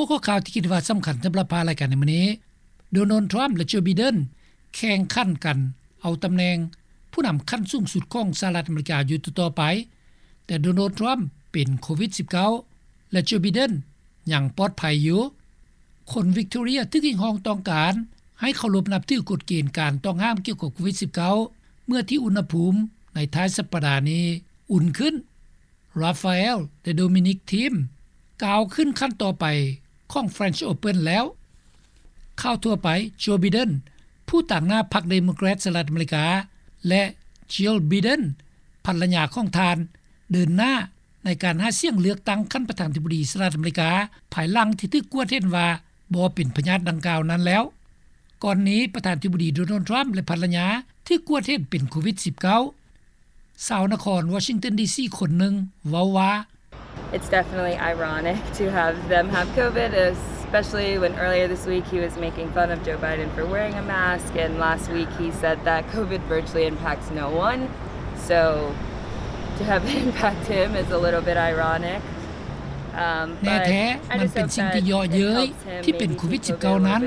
ຫົວຂໍ້ຂ່າວທີ່ຄິດວ່າສຳຄັນສຳລັບພາຍລາຍການໃນມື້ນີ້, ໂດນັລ ທຣຳ ແລະ ໂຈ ໄບເດັນ ແຂ່ງຂັນກັນເອົາຕຳແໜ່ງຜູ້ນຳຂັ້ນສູງສຸດຂອງສະຫະລັດອາເມລິກາຢູ່ຕໍ່ໆໄປ, ແຕ່ໂດນັລ ທຣຳ ເປັນໂຄວິດ-ສິບເກົ້າ ແລະ ໂຈ ໄບເດັນ ຍັງປອດໄພຢູ່. ຄົນວິກຕໍເຣຍຖືກຮຽກຮ້ອງຕ້ອງການໃຫ້ເຄົາລົບນັບຖືກົດເກນການຕ້ອງຫ້າມກ່ຽວກັບໂຄວິດ-ສິບເກົ້າ ເມື່ອທີ່ອຸນຫະພູມໃນທ້າຍສັບປະດານີ້ອຸ່ນຂຶ້ນ. ຣາຟາເອລ ແລະ ໂດມິນິກ ທີມ ກ້າວຂຶ້ນຂັ້ນຕໍ່ໄປຂອງ French Open ແລ້ວ. ຂ່າວທົ່ວໄປ, ໂຈ ໄບເດັນ ຜູ້ຕາງໜ້າພັກເດໂມແຄຣດສະຫະລັດອາເມລິກາ ແລະ ຈິລ ໄບເດັນ ພັນລະຍາຂອງທ່ານ ເດີນໜ້າໃນການຫາສຽງເລືອກຕັ້ງຂັ້ນປະທານາທິບໍດີສະຫະລັດອາເມລິກາ ພາຍຫຼັງທີ່ຖືກກວດເຫັນວ່າບໍ່ເປັນພະຍາດດັ່ງກ່າວນັ້ນແລ້ວ. ກ່ອນນີ້ປະທານາທິບໍດີໂດນັລ ທຣຳ ແລະ ພັນລະຍາຖືກກວດເຫັນເປັນໂຄວິດ-ສິບເກົ້າ. ຊາວນະຄອນວໍຊິງຕັນ ດີຊີ ຄົນໜຶ່ງເວົ້າວ່າ, It's definitely ironic to have them have COVID, especially when earlier this week he was making fun of Joe Biden for wearing a mask, and last week he said that COVID virtually impacts no one. So to have it impact him is a little bit ironic. ແນ່ແທ້, ມັນເປັນສິ່ງທີ່ເຍາະເຍີ້ຍທີ່ເປັນໂຄວິດ-ສິບເກົ້ານັ້ນ.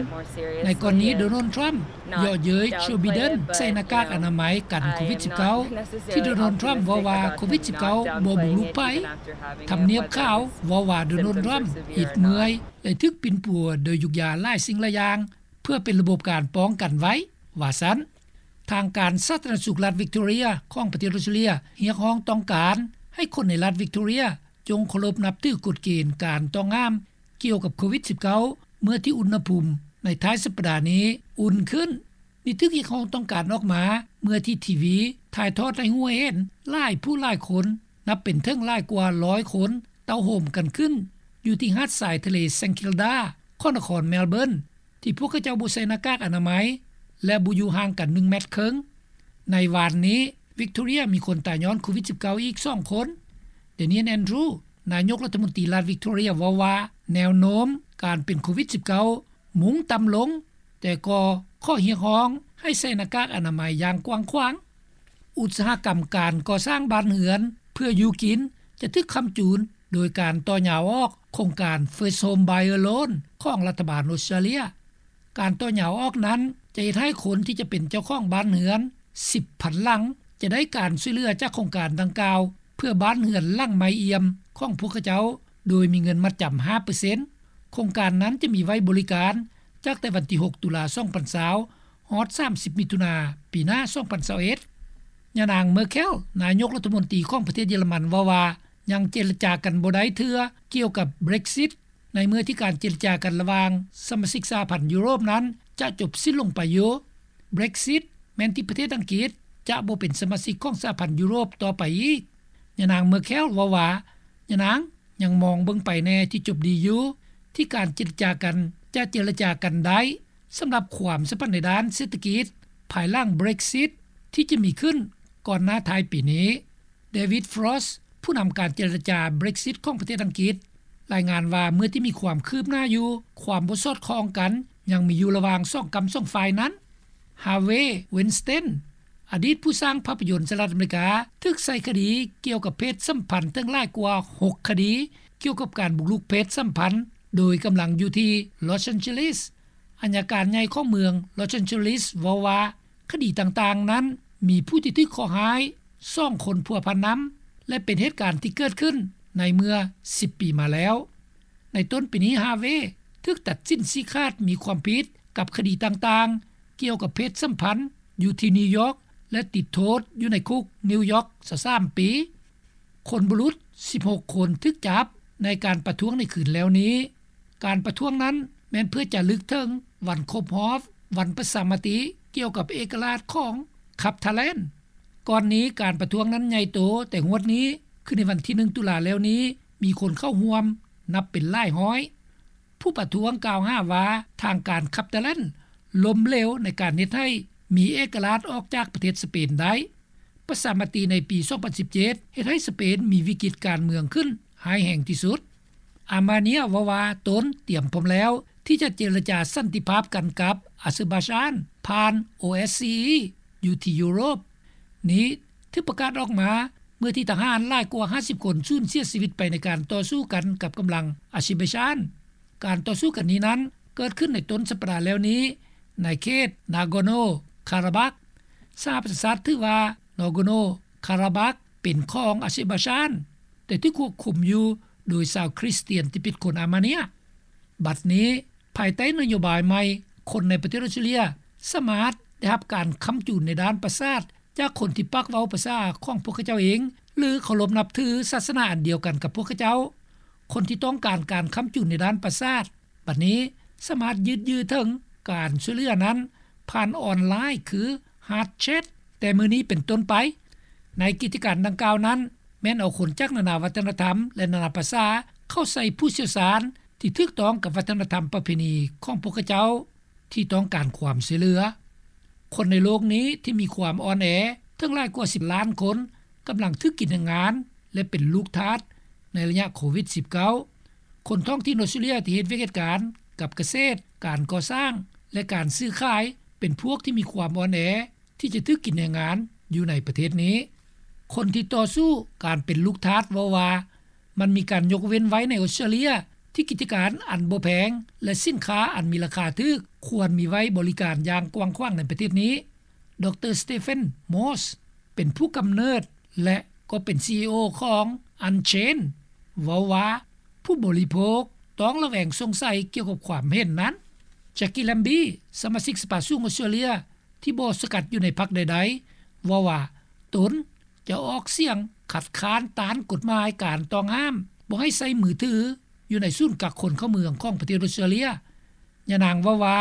ໃນກໍລະນີໂດນັລ ທຣຳ ເຍາະເຍີ້ຍໂຈ ໄບເດັນໃສ່ໜ້າກາກອະນາໄມກັນໂຄວິດ-ສິບເກົ້າ ທີ່ໂດນັລ ທຣຳ ເວົ້າວ່າໂຄວິດ-ສິບເກົ້າບໍ່ບຸກລຸກໃຜ. ທຳນຽບຂາວເວົ້າວ່າໂດນັລ ທຣຳ ອິດເມື່ອຍ ແລະ ຖືກປິ່ນປົວໂດຍຢູກຢາຫຼາຍສິ່ງຫຼາຍຢ່າງ ເພື່ອເປັນລະບົບການປ້ອງກັນໄວ້, ວ່າຊັ້ນ. ທາງການສາທາລະນະສຸກລັດວິກຕໍເຣຍຂອງປະເທດອົດສະຕຣາເລຍ ຮຽກຮ້ອງຕ້ອງການໃຫ້ຄົນໃນລັດວິກຕໍເຣຍ ຈົ່ງເຄົາລົບນັບຖືກົດເກນການຕ້ອງຫ້າມກ່ຽວກັບໂຄວິດ-ສິບເກົ້າ ເມື່ອທີ່ອຸນຫະພູມໃນທ້າຍສັບປະດານີ້ອຸ່ນຂຶ້ນ. ນີ້ຖືກຮຽກຮ້ອງຕ້ອງການອອກມາ ເມື່ອທີ່ທີວີຖ່າຍທອດໃຫ້ຮູ້ໃຫ້ເຫັນຫຼາຍຜູ້ຫຼາຍຄົນ ນັບເປັນເຖິງຫຼາຍກວ່າຮ້ອຍຄົນ ເຕົ້າໂຮມກັນຂຶ້ນຢູ່ທີ່ຫາດຊາຍທະເລ St Kilda ຂອງນະຄອນ Melbourne ທີ່ພວກເຂົາເຈົ້າບໍ່ໃສ່ໜ້າກາກອະນາໄມ ແລະ ບໍ່ຢູ່ຫ່າງກັນໜຶ່ງແມັດເຄິ່ງ. ໃນວານນີ້ ວິກຕໍເຣຍມີຄົນຕາຍຍ້ອນໂຄວິດ-ສິບເກົ້າ ອີກສອງຄົນ. Daniel Andrews ນາຍົກລັດຖະມົນຕີລັດວິກຕໍເຣຍເວົ້າວ່າ ແນວໂນ້ມການເປັນໂຄວິດ-ສິບເກົ້າ ມຸ່ງຕ່ຳລົງ, ແຕ່ກໍຂໍຮຽກຮ້ອງໃຫ້ໃສ່ໜ້າກາກອະນາໄມຢ່າງກວ້າງຂວາງ. ອຸດສາຫະກຳການກໍ່ສ້າງບ້ານເຮືອນເພື່ອຢູ່ກິນ ຈະຖືກຄ້ຳຈູນໂດຍການຕໍ່ຍາວອອກໂຄງການ First Home Buyer Loan ຂອງລັດຖະບານອົດສະຕຣາເລຍ. ການຕໍ່ຍາວອອກນັ້ນ ຈະເຮັດໃຫ້ຄົນທີ່ຈະເປັນເຈົ້າຂອງບ້ານເຮືອນສິບພັນຫຼັງ ຈະໄດ້ການຊ່ວຍເຫຼືອຈາກໂຄງການດັ່ງກ່າວ ເພື່ອບ້ານເຮືອນຫຼັງໃໝ່ອ່ຽມຂອງພວກເຂົາເຈົ້າ ໂດຍມີເງິນມັດຈຳຫ້າເປີເຊັນ. ໂຄງການນັ້ນຈະມີໄວ້ບໍລິການ ຈາກແຕ່ວັນທີຫົກ ຕຸລາ ສອງພັນຊາວ ຮອດສາມສິບ ມິຖຸນາ ປີໜ້າ ສອງພັນຊາວເອັດ. ຍານາງ Merkel ນາຍົກລັດຖະມົນຕີຂອງປະເທດເຢຍລະມັນ ເວົ້າວ່າ ຍັງເຈລະຈາກັນບໍ່ໄດ້ເທື່ອກ່ຽວກັບ Brexit ໃນເມື່ອທີ່ການເຈລະຈາກັນລະຫວ່າງສະມາຊິກສະຫະພັນຢູໂຣບນັ້ນຈະຈົບສິ້ນລົງໄປຢູ່. Brexit ແມ່ນທີ່ປະເທດອັງກິດຈະບໍ່ເປັນສະມາຊິກຂອງສະຫະພັນຢູໂຣບຕໍ່ໄປອີກ. ຍານາງ Merkel ເວົ້າວ່າ ຍານາງຍັງມອງເບິ່ງໄປແນ່ທີ່ຈົບດີຢູ່ ທີ່ການເຈລະຈາກັນຈະເຈລະຈາກັນໄດ້ ສຳລັບຄວາມສຳພັນໃນດ້ານເສດຖະກິດ ພາຍຫຼັງ Brexit ທີ່ຈະມີຂຶ້ນກ່ອນໜ້າທ້າຍປີນີ້. David Frost ຜູ້ນຳການເຈລະຈາ Brexit ຂອງປະເທດອັງກິດ ລາຍງານວ່າ ເມື່ອທີ່ມີຄວາມຄືບໜ້າຢູ່, ຄວາມບໍ່ສອດຄ່ອງກັນຍັງມີຢູ່ລະຫວ່າງສອງກ້ຳສອງຝ່າຍນັ້ນ. Harvey Weinstein ອະດີດຜູ້ສ້າງພາບພະຍົນສະຫະລັດອາເມລິກາ ຖືກໃສ່ຄະດີກ່ຽວກັບເພດສຳພັນເຖິງຫຼາຍກວ່າຫົກຄະດີ ກ່ຽວກັບການບຸກລຸກເພດສຳພັນໂດຍກຳລັງຢູ່ທີ່ Los Angeles. ອັຍການໃຫຍ່ຂອງເມືອງ Los Angeles ເວົ້າວ່າ ຄະດີຕ່າງໆນັ້ນມີຜູ້ທີ່ຖືກເຄາະຮ້າຍສອງຄົນພົວພັນນຳ ແລະ ເປັນເຫດການທີ່ເກີດຂຶ້ນໃນເມື່ອສິບປີມາແລ້ວ. ໃນຕົ້ນປີນີ້ Harvey ຖືກຕັດສິນຊີ້ຂາດມີຄວາມຜິດກັບຄະດີຕ່າງໆ ກ່ຽວກັບເພດສຳພັນຢູ່ທີ່ນິວຢອກ ແລະ ຕິດໂທດຢູ່ໃນຄຸກນິວຢອກຊາວສາມປີ. ຄົນບຸລຸດສິບຫົກຄົນຖືກຈັບໃນການປະທ້ວງໃນຄືນແລ້ວນີ້. ການປະທ້ວງນັ້ນແມ່ນເພື່ອຈະລຶກເຖິງວັນຄົບຮອບວັນປະຊາມະຕິກ່ຽວກັບເອກະລາດຂອງ Catalan. ກ່ອນນີ້ການປະທ້ວງນັ້ນໃຫຍ່ໂຕ, ແຕ່ງວດນີ້ ຄືໃນວັນທີໜຶ່ງ ຕຸລາແລ້ວນີ້ ມີຄົນເຂົ້າຮ່ວມນັບເປັນຫຼາຍຮ້ອຍ. ຜູ້ປະທ້ວງກ່າວຫາວ່າທາງການ Catalan ລົ້ມເຫຼວໃນການເຮັດໃຫ້ມີເອກະລາດອອກຈາກປະເທດສະເປນໄດ້. ປະຊາມະຕິໃນປີສອງພັນສິບເຈັດ ເຮັດໃຫ້ສະເປນມີວິກິດການເມືອງຂຶ້ນຮ້າຍແຮງທີ່ສຸດ. Armenia ເວົ້າວ່າຕົນຕຽມພ້ອມແລ້ວທີ່ຈະເຈລະຈາສັນຕິພາບກັນກັບອາເຊີບາຈານຜ່ານ OSCE ຢູ່ທີ່ຢູໂຣບ. ນີ້ຖືກປະກາດອອກມາເມື່ອທີ່ທະຫານຫຼາຍກວ່າຫ້າສິບຄົນສູນເສຍຊີວິດໄປໃນການຕໍ່ສູ້ກັນກັບກຳລັງອາເຊີບາຈານ. ການຕໍ່ສູ້ກັນນີ້ນັ້ນ ເກີດຂຶ້ນໃນຕົ້ນສັບປະດາແລ້ວນີ້ ໃນເຂດນາໂກໂນຄາຣາບັກ. ສະຫະປະຊາຊາດຖືວ່ານາໂກໂນຄາຣາບັກເປັນຂອງອາເຊີບາຈານ, ແຕ່ຖືກຄວບຄຸມຢູ່ໂດຍຊາວຄຣິສຕຽນທີ່ເປັນຄົນອາເມເນຍ. ບັດນີ້, ພາຍໃຕ້ນະໂຍບາຍໃໝ່, ຄົນໃນປະເທດອອສເຕຣເລຍສາມາດໄດ້ຮັບການຄ້ຳຈູນໃນດ້ານປະສາດ ຈາກຄົນທີ່ປາກເວົ້າພາສາຂອງພວກເຂົາເຈົ້າເອງ ຫຼື ເຄົາລົບນັບຖືສາສະໜາອັນດຽວກັນກັບພວກເຂົາເຈົ້າ. ຄົນທີ່ຕ້ອງການການຄ້ຳຈູນໃນດ້ານປະສາດ ບັດນີ້ສາມາດຢືດເຍື້ອເຖິງການຊ່ວຍເຫຼືອນັ້ນ ຜ່ານອອນລາຍ ຄື Heart Chat ແຕ່ມື້ນີ້ເປັນຕົ້ນໄປ. ໃນກິດຈະການດັ່ງກ່າວນັ້ນ ແມ່ນເອົາຄົນຈາກນານາວັດທະນະທຳ ແລະ ນານາພາສາ ເຂົ້າໃສ່ຜູ້ຊ່ຽວຊານທີ່ຖືກຕ້ອງກັບວັດທະນະທຳປະເພນີຂອງພວກເຂົາເຈົ້າ ທີ່ຕ້ອງການຄວາມຊ່ວຍເຫຼືອ. ຄົນໃນໂລກນີ້ທີ່ມີຄວາມອ່ອນແອ ເຖິງຫຼາຍກວ່າສິບລ້ານຄົນ ກຳລັງຖືກກິນແຮງງານ ແລະ ເປັນລູກທາດໃນໄລຍະໂຄວິດສິບເກົ້າ. ຄົນທ້ອງຖິ່ນອອສເຕຣເລຍທີ່ເຮັດວຽກເຮັດການກັບກະເສດ, ການກໍ່ສ້າງ ແລະ ການຊື້ຂາຍ ເປັນພວກທີ່ມີຄວາມອ່ອນແອ ທີ່ຈະຖືກກິນແຮງງານຢູ່ໃນປະເທດນີ້. ຄົນທີ່ຕໍ່ສູ້ການເປັນລູກທາດເວົ້າວ່າ ມັນມີການຍົກເວັ້ນໄວ້ໃນອອສເຕຣເລຍ ທີ່ກິດຈະການອັນບໍ່ແພງ ແລະ ສິນຄ້າອັນມີລາຄາຖືກ ຄວນມີໄວ້ບໍລິການຢ່າງກວ້າງຂວາງໃນປະເທດນີ້. ດຣ. Stephen Morse ເປັນຜູ້ກຳເນີດ ແລະ ກໍເປັນ ຊີອີໂອ ຂອງ Unchained ເວົ້າວ່າ ຜູ້ບໍລິໂພກຕ້ອງລະແວງສົງໄສກ່ຽວກັບຄວາມເຫັນນັ້ນ. Jackie Lambie ສະມາຊິກສະພາສູງອອສເຕຣເລຍ ທີ່ບໍ່ສັງກັດຢູ່ໃນພັກໃດໆ ເວົ້າວ່າ ຕົນຈະອອກສຽງຄັດຄ້ານຕ້ານກົດໝາຍການຕ້ອງຫ້າມບໍ່ໃຫ້ໃຊ້ມືຖືຢູ່ໃນສູນກັກຄົນເຂົ້າເມືອງຂອງປະເທດອອສເຕຣເລຍ. ຍານາງເວົ້າວ່າ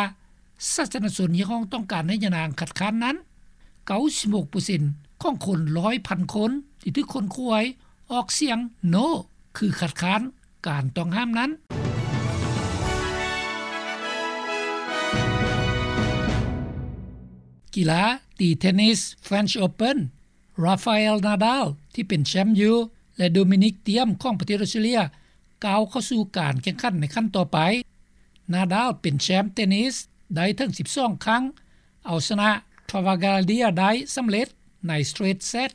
ສາທາລະນະຊົນຮຽກຮ້ອງຕ້ອງການໃຫ້ຍານາງຄັດຄ້ານນັ້ນ, ເກົ້າສິບຫົກເປີເຊັນຂອງຄົນຮ້ອຍພັນຄົນທີ່ຖືກຄົ້ນຄວ້າຍອອກສຽງ No ຄືຄັດຄ້ານການຕ້ອງຫ້າມນັ້ນ. ກິລາຕີເທນນິສ French Open, Rafael Nadal ທີ່ເປັນແຊມຢູ່ ແລະ Dominic Thiem ຂອງປະເທດອອສເຕຣເລຍ ກ້າວເຂົ້າສູ່ການແຂ່ງຂັນໃນຂັ້ນຕໍ່ໄປ. Nadal ເປັນແຊມເຕນນິສໄດ້ເຖິງສິບສອງຄັ້ງ, ເອົາຊະນະ Travaglia ໄດ້ສຳເລັດໃນ straight set.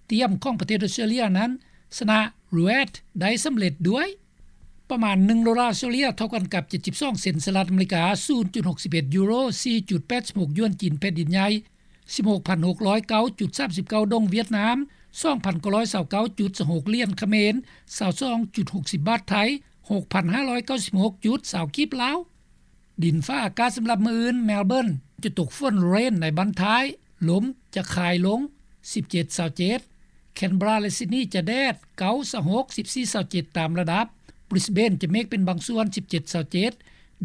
Thiem ຂອງປະເທດອອສເຕຣເລຍນັ້ນຊະນະ Ruiz ໄດ້ສຳເລັດດ້ວຍ. ປະມານໜຶ່ງໂດລາອອສເຕຣເລຍ ເທົ່າກັນກັບເຈັດສິບສອງເຊັນສະຫະລັດອາເມລິກາ, ສູນຈຸດຫົກສິບເອັດຢູໂຣ, ສີ່ຈຸດແປດສິບຫົກຢວນຈີນແຜ່ນດິນໃຫຍ່, ສິບຫົກພັນຫົກຮ້ອຍເກົ້າຈຸດສາມສິບເກົ້າດົງຫວຽດນາມ, ສອງພັນເກົ້າຮ້ອຍຊາວເກົ້າຈຸດຊາວຫົກຫຼຽນຂະເໝນ, ຊາວສອງຈຸດຫົກສິບບາດໄທ, ຫົກພັນຫ້າຮ້ອຍເກົ້າສິບຫົກຈຸດຊາວກີບລາວ. ດິນຟ້າອາກາດສຳລັບມື້ອື່ນ, ແມລເບີນຈະຕົກຝົນ rain ໃນບັ້ນທ້າຍ, ລົມຈະຄາຍລົງ ສິບເຈັດ ຊາວເຈັດ, ແຄນເບຣາ ແລະ ຊິດນີຈະແດດ ເກົ້າ ຊາວຫົກ, ສິບສີ່ ຊາວເຈັດ ຕາມລະດັບ, ບຣິສເບນຈະເມກເປັນບາງສ່ວນ ສິບເຈັດ ຊາວເຈັດ,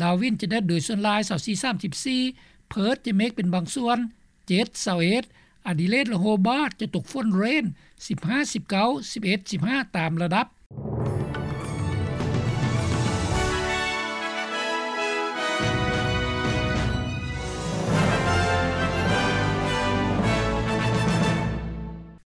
ດາວິນຈະແດດໂດຍສ່ວນຫຼາຍ ຊາວສີ່ ສາມສິບສີ່, ເພີດຈະເມກເປັນບາງສ່ວນ ເຈັດ ຊາວເອັດ, ອາດີເລດ ແລະ ໂຮບາດຈະຕົກຝົນ rain ສິບຫ້າ ສິບເກົ້າ ສິບເອັດ ສິບຫ້າ ຕາມລະດັບ.